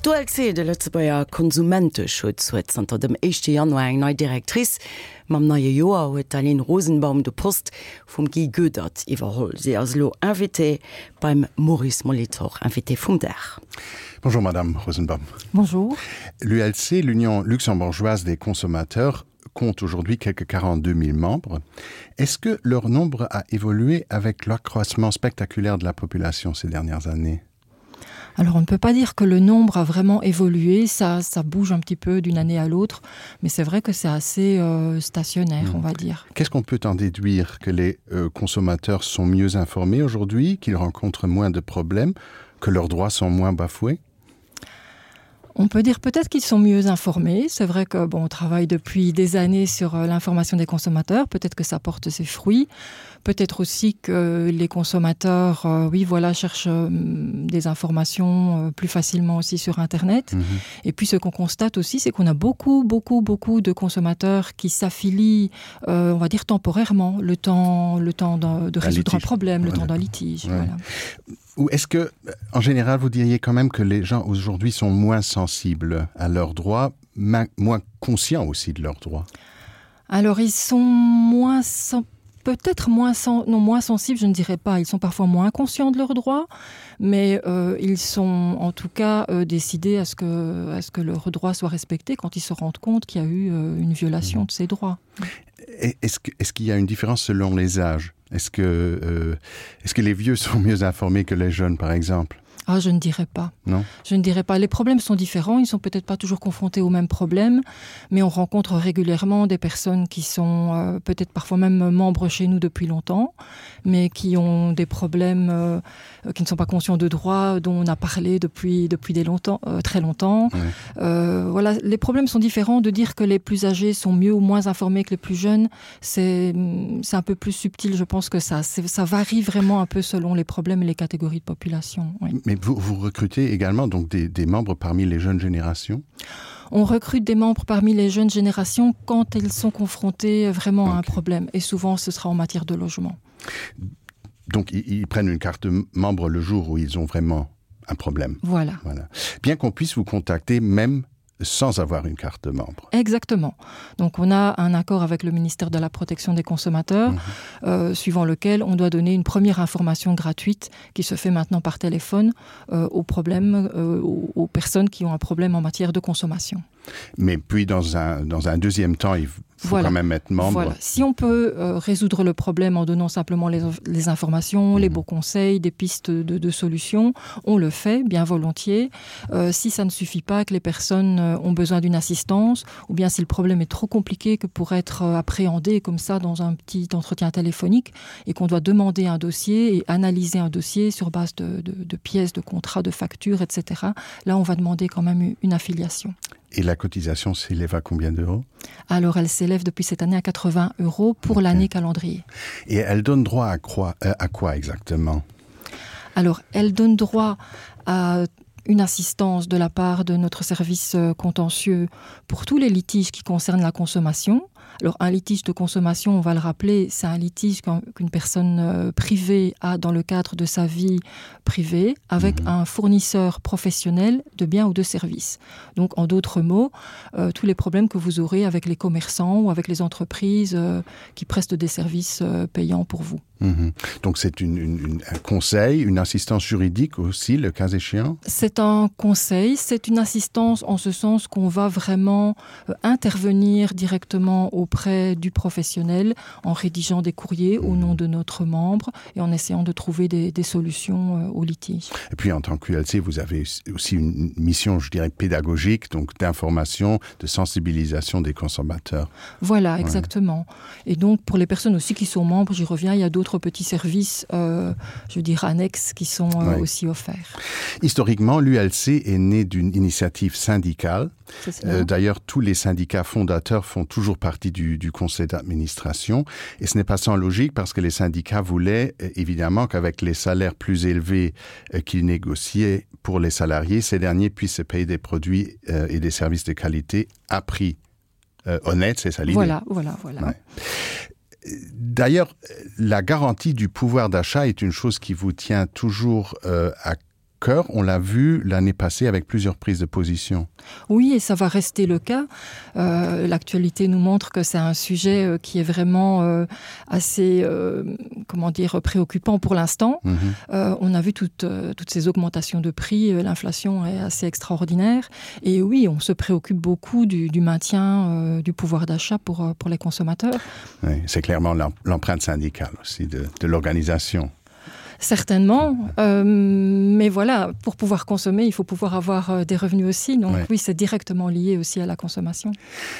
D'ULC, de Lëtzebuerger Konsumenteschutz, huet zanter dem éischte Januar eng nei Directrice. Mam neie Joer huet d'Aline Rosenbaum de Poste vum Guy Goedert iwwerholl. Si ass elo Invitée beim Maurice Molitor, Invité vum Dag. Bonjour Madame Rosenbaum. Bonjour. L'ULC, l'Union luxembourgeoise des consommateurs, compte aujourd'hui quelques 42 000 membres. Est-ce que leur nombre a évolué avec l'accroissement spectaculaire de la population ces dernières années? Alors on ne peut pas dire que le nombre a vraiment évolué, ça, ça bouge un petit peu d'une année à l'autre, mais c'est vrai que c'est assez euh, stationnaire, mmh. on va dire. Qu'est-ce qu'on peut en déduire que les euh, consommateurs sont mieux informés aujourd'hui, qu'ils rencontrent moins de problèmes, que leurs droits sont moins bafoués? On peut dire peut-être qu'ils sont mieux informés. C'est vrai que bon, on travaille depuis des années sur euh, l'information des consommateurs, peut-être que ça porte ses fruits. Peut-être aussi que les consommateurs euh, oui voilà cherchent euh, des informations euh, plus facilement aussi sur internet. Mmh. Et puis ce qu'on constate aussi, c'est qu'on a beaucoup beaucoup beaucoup de consommateurs qui s'affilient euh, on va dire temporairement le temps le temps de, de résoudre un, un problème, ouais, le temps d'un litige. Ouais. Voilà. Ou est-ce que en général vous diriez quand même que les gens aujourd'hui sont moins sensibles à leurs droits, moins conscients aussi de leurs droits? Alors ils sont moins sensibles peut-être moins sen non moins sensibles je ne dirais pas ils sont parfois moins conscients de leurs droits mais euh, ils sont en tout cas euh, décidés à ce que à ce que leurs droits soient respectés quand ils se rendent compte qu'il y a eu euh, une violation mmh. de ces droits est-ce que est-ce qu'il y a une différence selon les âges est-ce que euh, est-ce que les vieux sont mieux informés que les jeunes par exemple Ah, je ne dirais pas. Non. Je ne dirais pas. Les problèmes sont différents, ils ne sont peut-être pas toujours confrontés aux mêmes problèmes, mais on rencontre régulièrement des personnes qui sont euh, peut-être parfois même membres chez nous depuis longtemps, mais qui ont des problèmes euh, qui ne sont pas conscients de droits dont on a parlé depuis, depuis des longtemps, euh, très longtemps. Ouais. Euh, voilà, les problèmes sont différents de dire que les plus âgés sont mieux ou moins informés que les plus jeunes, c'est un peu plus subtil, je pense que ça. Ça varie vraiment un peu selon les problèmes et les catégories de population. Oui. Mais vous, vous recrutez également donc des, des membres parmi les jeunes générations On recrute des membres parmi les jeunes générations quand elles sont confrontées vraiment okay. à un problème et souvent ce sera en matière de logement. Donc ils, ils prennent une carte membre le jour où ils ont vraiment un problème. Voilà. voilà. Bien qu'on puisse vous contacter même sans avoir une carte de membre. Exactement. Donc on a un accord avec le ministère de la protection des consommateurs, mmh. euh, suivant lequel on doit donner une première information gratuite qui se fait maintenant par téléphone euh, aux problèmes euh, aux, aux personnes qui ont un problème en matière de consommation. Mais puis dans un, dans un deuxième temps, il faut voilà. quand même être membre. Voilà. Si on peut euh, résoudre le problème en donnant simplement les, les informations, mmh. les beaux conseils, des pistes de, de solutions, on le fait bien volontiers. Euh, si ça ne suffit pas que les personnes euh, ont besoin d'une assistance ou bien si le problème est trop compliqué que pour être euh, appréhendé comme ça dans un petit entretien téléphonique et qu'on doit demander un dossier et analyser un dossier sur base de, de, de pièces, de contrats, de factures, etc. Là, on va demander quand même une affiliation. Et la cotisation s'élève à combien d'euros Alors elle s'élève depuis cette année à 80 euros pour okay. l'année calendrier. Et elle donne droit à quoi, euh, à quoi exactement Alors elle donne droit à une assistance de la part de notre service euh, contentieux pour tous les litiges qui concernent la consommation. Alors un litige de consommation, on va le rappeler, c'est un litige qu'une personne euh, privée a dans le cadre de sa vie privée avec mmh. un fournisseur professionnel de biens ou de services. Donc en d'autres mots, euh, tous les problèmes que vous aurez avec les commerçants ou avec les entreprises euh, qui prestent des services euh, payants pour vous. Mmh. Donc c'est une, une, une, un conseil, une assistance juridique aussi, le cas échéant C'est un conseil, c'est une assistance en ce sens qu'on va vraiment euh, intervenir directement auprès du professionnel en rédigeant des courriers mmh. au nom de notre membre et en essayant de trouver des, des solutions euh, au litige. Et puis en tant qu'ULC, vous avez aussi une mission, je dirais, pédagogique, donc d'information, de sensibilisation des consommateurs. Voilà, exactement. Ouais. Et donc pour les personnes aussi qui sont membres, j'y reviens, il y a d'autres petits services, euh, je veux dire annexes, qui sont euh, ouais. aussi offerts. Historiquement, l'ULC est née d'une initiative syndicale. Euh, D'ailleurs, tous les syndicats fondateurs font toujours partie du, du conseil d'administration. Et ce n'est pas sans logique parce que les syndicats voulaient euh, évidemment qu'avec les salaires plus élevés euh, qu'ils négociaient pour les salariés, ces derniers puissent se payer des produits euh, et des services de qualité à prix euh, honnête, c'est ça l'idée. Voilà, voilà, voilà. Ouais. D'ailleurs, la garantie du pouvoir d'achat est une chose qui vous tient toujours euh, à cœur. cœur. On l'a vu l'année passée avec plusieurs prises de position. Oui, et ça va rester le cas. Euh, L'actualité nous montre que c'est un sujet euh, qui est vraiment euh, assez euh, comment dire préoccupant pour l'instant. Mmh. Euh, on a vu toutes, euh, toutes ces augmentations de prix, euh, l'inflation est assez extraordinaire. Et oui, on se préoccupe beaucoup du, du maintien euh, du pouvoir d'achat pour, euh, pour les consommateurs. Oui, c'est clairement l'empreinte syndicale aussi de, de l'organisation. Certainement, euh, mais voilà, pour pouvoir consommer, il faut pouvoir avoir euh, des revenus aussi. Donc ouais. oui, c'est directement lié aussi à la consommation.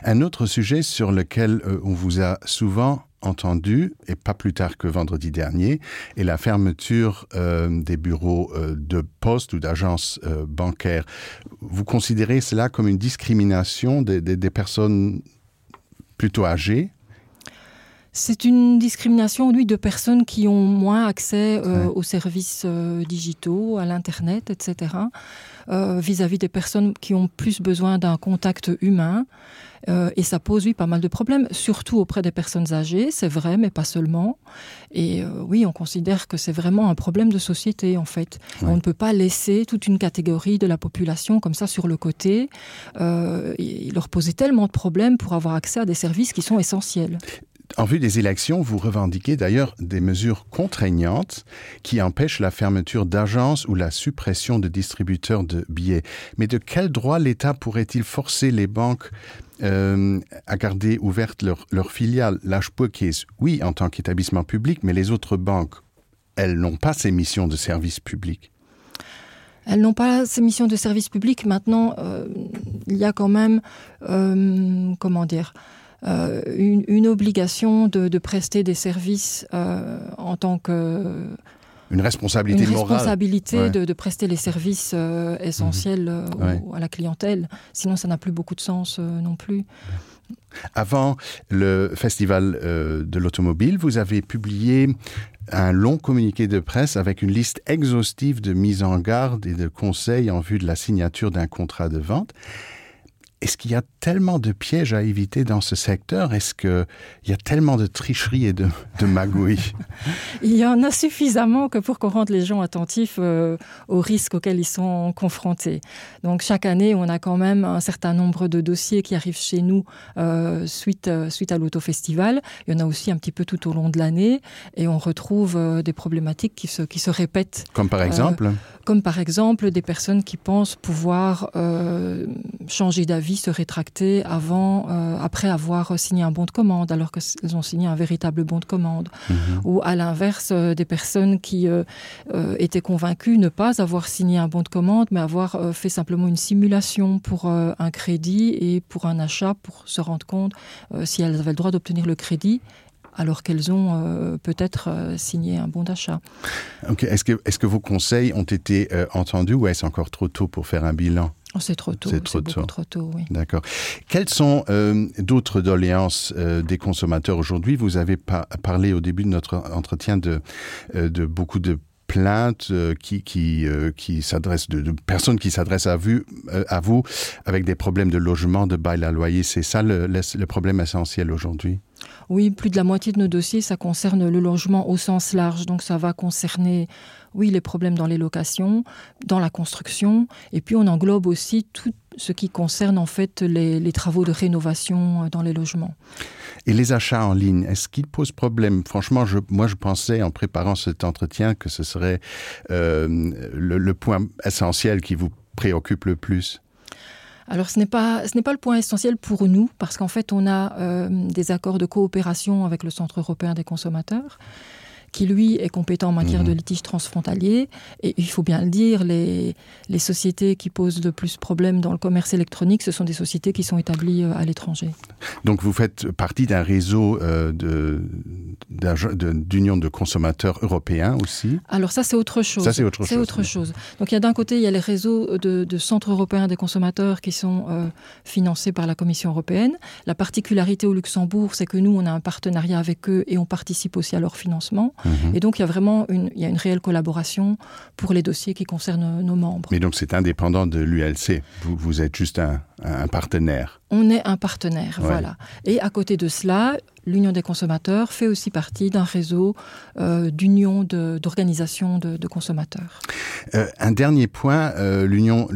Un autre sujet sur lequel euh, on vous a souvent entendu, et pas plus tard que vendredi dernier, est la fermeture euh, des bureaux euh, de poste ou d'agences euh, bancaires. Vous considérez cela comme une discrimination des, des, des personnes plutôt âgées C'est une discrimination lui de personnes qui ont moins accès euh, ouais. aux services euh, digitaux, à l'internet, etc. Euh, vis-à-vis euh, -vis des personnes qui ont plus besoin d'un contact humain. Euh, et ça pose oui pas mal de problèmes, surtout auprès des personnes âgées, c'est vrai, mais pas seulement. Et euh, oui, on considère que c'est vraiment un problème de société en fait. Ouais. On ne peut pas laisser toute une catégorie de la population comme ça sur le côté euh, et leur poser tellement de problèmes pour avoir accès à des services qui sont essentiels. En vue des élections, vous revendiquez d'ailleurs des mesures contraignantes qui empêchent la fermeture d'agences ou la suppression de distributeurs de billets. Mais de quel droit l'État pourrait-il forcer les banques euh, à garder ouverte leur, leur filiale l'H-Case Oui, en tant qu'établissement public, mais les autres banques, elles n'ont pas ces missions de service public. Elles n'ont pas ces missions de service public. Maintenant, euh, il y a quand même euh, comment dire euh, une, une obligation de, de prester des services euh, en tant que une responsabilité, une responsabilité ouais. de, de prester les services euh, essentiels mmh. ouais. au, à la clientèle sinon ça n'a plus beaucoup de sens euh, non plus avant le festival euh, de l'automobile vous avez publié un long communiqué de presse avec une liste exhaustive de mise en garde et de conseils en vue de la signature d'un contrat de vente est-ce qu'il y a tellement de pièges à éviter dans ce secteur Est-ce qu'il y a tellement de tricheries et de, de magouilles Il y en a suffisamment que pour qu'on rende les gens attentifs euh, aux risques auxquels ils sont confrontés. Donc chaque année, on a quand même un certain nombre de dossiers qui arrivent chez nous euh, suite, euh, suite à l'autofestival. Il y en a aussi un petit peu tout au long de l'année et on retrouve euh, des problématiques qui se, qui se répètent. Comme par exemple euh, Comme par exemple des personnes qui pensent pouvoir euh, changer d'avis se rétracter avant euh, après avoir signé un bon de commande alors qu'elles ont signé un véritable bon de commande mmh. ou à l'inverse euh, des personnes qui euh, euh, étaient convaincues ne pas avoir signé un bon de commande mais avoir euh, fait simplement une simulation pour euh, un crédit et pour un achat pour se rendre compte euh, si elles avaient le droit d'obtenir le crédit alors qu'elles ont euh, peut-être euh, signé un bon d'achat. Okay. Est-ce que, est -ce que vos conseils ont été euh, entendus ou est-ce encore trop tôt pour faire un bilan Oh, c'est trop tôt. C'est trop tôt. trop tôt oui. D'accord. Quelles sont euh, d'autres doléances euh, des consommateurs aujourd'hui Vous avez pa parlé au début de notre entretien de, euh, de beaucoup de plaintes euh, qui, qui, euh, qui s'adressent de, de personnes qui s'adressent à, vue, euh, à vous avec des problèmes de logement, de bail à loyer. C'est ça le, le, le problème essentiel aujourd'hui Oui, plus de la moitié de nos dossiers, ça concerne le logement au sens large. Donc ça va concerner oui, les problèmes dans les locations, dans la construction. Et puis on englobe aussi tout ce qui concerne en fait les, les travaux de rénovation euh, dans les logements. Et les achats en ligne, est-ce qu'ils posent problème Franchement, je, moi je pensais en préparant cet entretien que ce serait euh, le, le point essentiel qui vous préoccupe le plus. Alors ce n'est pas, ce n'est pas le point essentiel pour nous parce qu'en fait on a euh, des accords de coopération avec le Centre européen des consommateurs qui lui est compétent en matière mmh. de litige transfrontalier et il faut bien le dire les, les sociétés qui posent le plus problème dans le commerce électronique ce sont des sociétés qui sont établies euh, à l'étranger donc vous faites partie d'un réseau euh, d'union de, de consommateurs européens aussi alors ça c'est autre chose ça c'est autre chose, autre chose. donc il y a d'un côté il y a les réseaux de, de centres européens des consommateurs qui sont euh, financés par la commission européenne la particularité au luxembourg c'est que nous on a un partenariat avec eux et on participe aussi à leur financement. Mm -hmm. Et donc il y a vraiment une, il y a une réelle collaboration pour les dossiers qui concernent nos membres. Mais donc c'est indépendant de l'ULC, vous, vous êtes juste un, un partenaire. On est un partenaire, ouais. voilà. Et à côté de cela, l'Union des consommateurs fait aussi partie d'un réseau euh, d'union d'organisations de, de, de consommateurs. Euh, un dernier point, euh, l'Union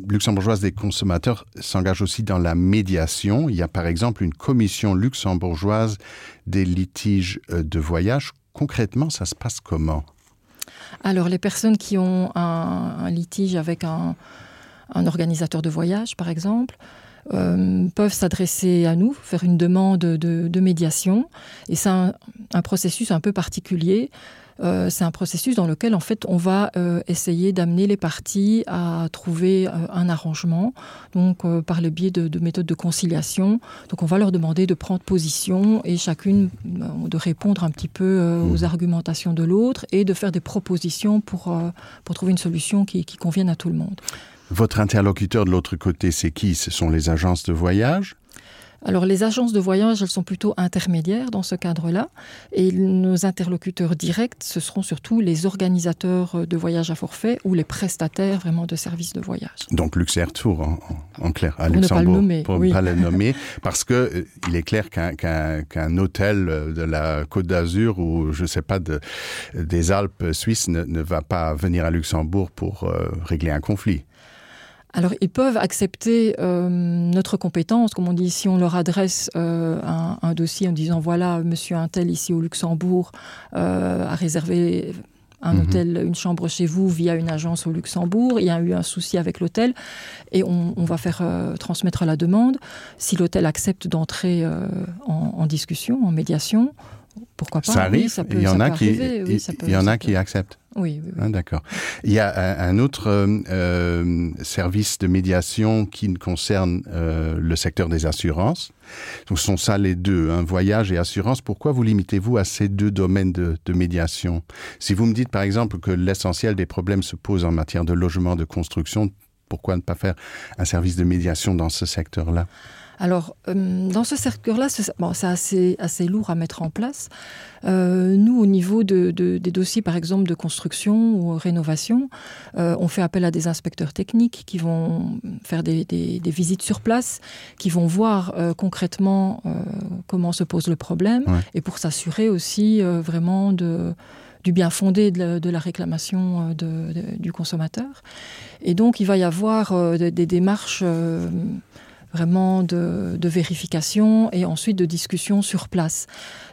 luxembourgeoise des consommateurs s'engage aussi dans la médiation. Il y a par exemple une commission luxembourgeoise des litiges euh, de voyage. Concrètement, ça se passe comment? Alors les personnes qui ont un, un litige avec un, un organisateur de voyage, par exemple, euh, peuvent s'adresser à nous, faire une demande de, de médiation. Et c'est un, un processus un peu particulier. Euh, c'est un processus dans lequel en fait on va euh, essayer d'amener les parties à trouver euh, un arrangement donc euh, par le biais de, de méthodes de conciliation donc on va leur demander de prendre position et chacune euh, de répondre un petit peu euh, aux mmh. argumentations de l'autre et de faire des propositions pour, euh, pour trouver une solution qui, qui convienne à tout le monde. Votre interlocuteur de l'autre côté c'est qui ce sont les agences de voyage Alors les agences de voyage, elles sont plutôt intermédiaires dans ce cadre-là et nos interlocuteurs directs, ce seront surtout les organisateurs de voyages à forfait ou les prestataires vraiment de services de voyage. Donc Luxair Tour en, en clair à pour Luxembourg ne pas le nommer, pour oui. ne pas le nommer parce que euh, il est clair qu'un qu qu hôtel de la Côte d'Azur ou je sais pas de, des Alpes suisses ne, ne va pas venir à Luxembourg pour euh, régler un conflit. Alors ils peuvent accepter euh, notre compétence, comme on dit si on leur adresse euh, un, un dossier en disant voilà monsieur un tel ici au Luxembourg euh, a réservé un mmh. hôtel, une chambre chez vous via une agence au Luxembourg, il y a eu un souci avec l'hôtel et on, on va faire euh, transmettre la demande. Si l'hôtel accepte d'entrer euh, en, en discussion, en médiation, pourquoi pas ça arrive, oui, ça peut, il y en a qui, arriver, oui, ça peut, il y en a qui acceptent. Oui, oui, oui. Ah, d'accord. Il y a un, un autre euh, euh, service de médiation qui concerne euh, le secteur des assurances. Donc ce sont ça les deux, un voyage et assurance. Pourquoi vous limitez-vous à ces deux domaines de, de médiation Si vous me dites par exemple que l'essentiel des problèmes se pose en matière de logement, de construction, pourquoi ne pas faire un service de médiation dans ce secteur-là Alors euh, dans ce secteur là bon, c'est assez, assez lourd à mettre en place. Euh, nous au niveau de, de, des dossiers par exemple de construction ou rénovation, euh, on fait appel à des inspecteurs techniques qui vont faire des, des, des visites sur place, qui vont voir euh, concrètement euh, comment se pose le problème ouais. et pour s'assurer aussi euh, vraiment de, du bien fondé de la, de la réclamation euh, de, de, du consommateur. Et donc il va y avoir euh, des, des démarches euh, vraiment de, de vérification et ensuite de discussion sur place.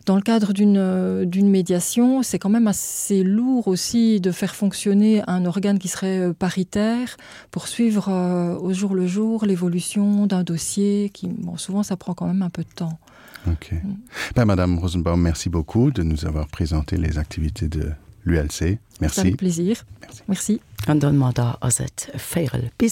Dans le cadre d'une médiation, c'est quand même assez lourd aussi de faire fonctionner un organe qui serait euh, paritaire pour suivre euh, au jour le jour l'évolution d'un dossier qui bon, souvent ça prend quand même un peu de temps. Ok. Mm. Ben, Madame Rosenbaum, merci beaucoup de nous avoir présenté les activités de l'ULC. Merci. Avec plaisir. Merci. merci. An domadder ass et véierel bis.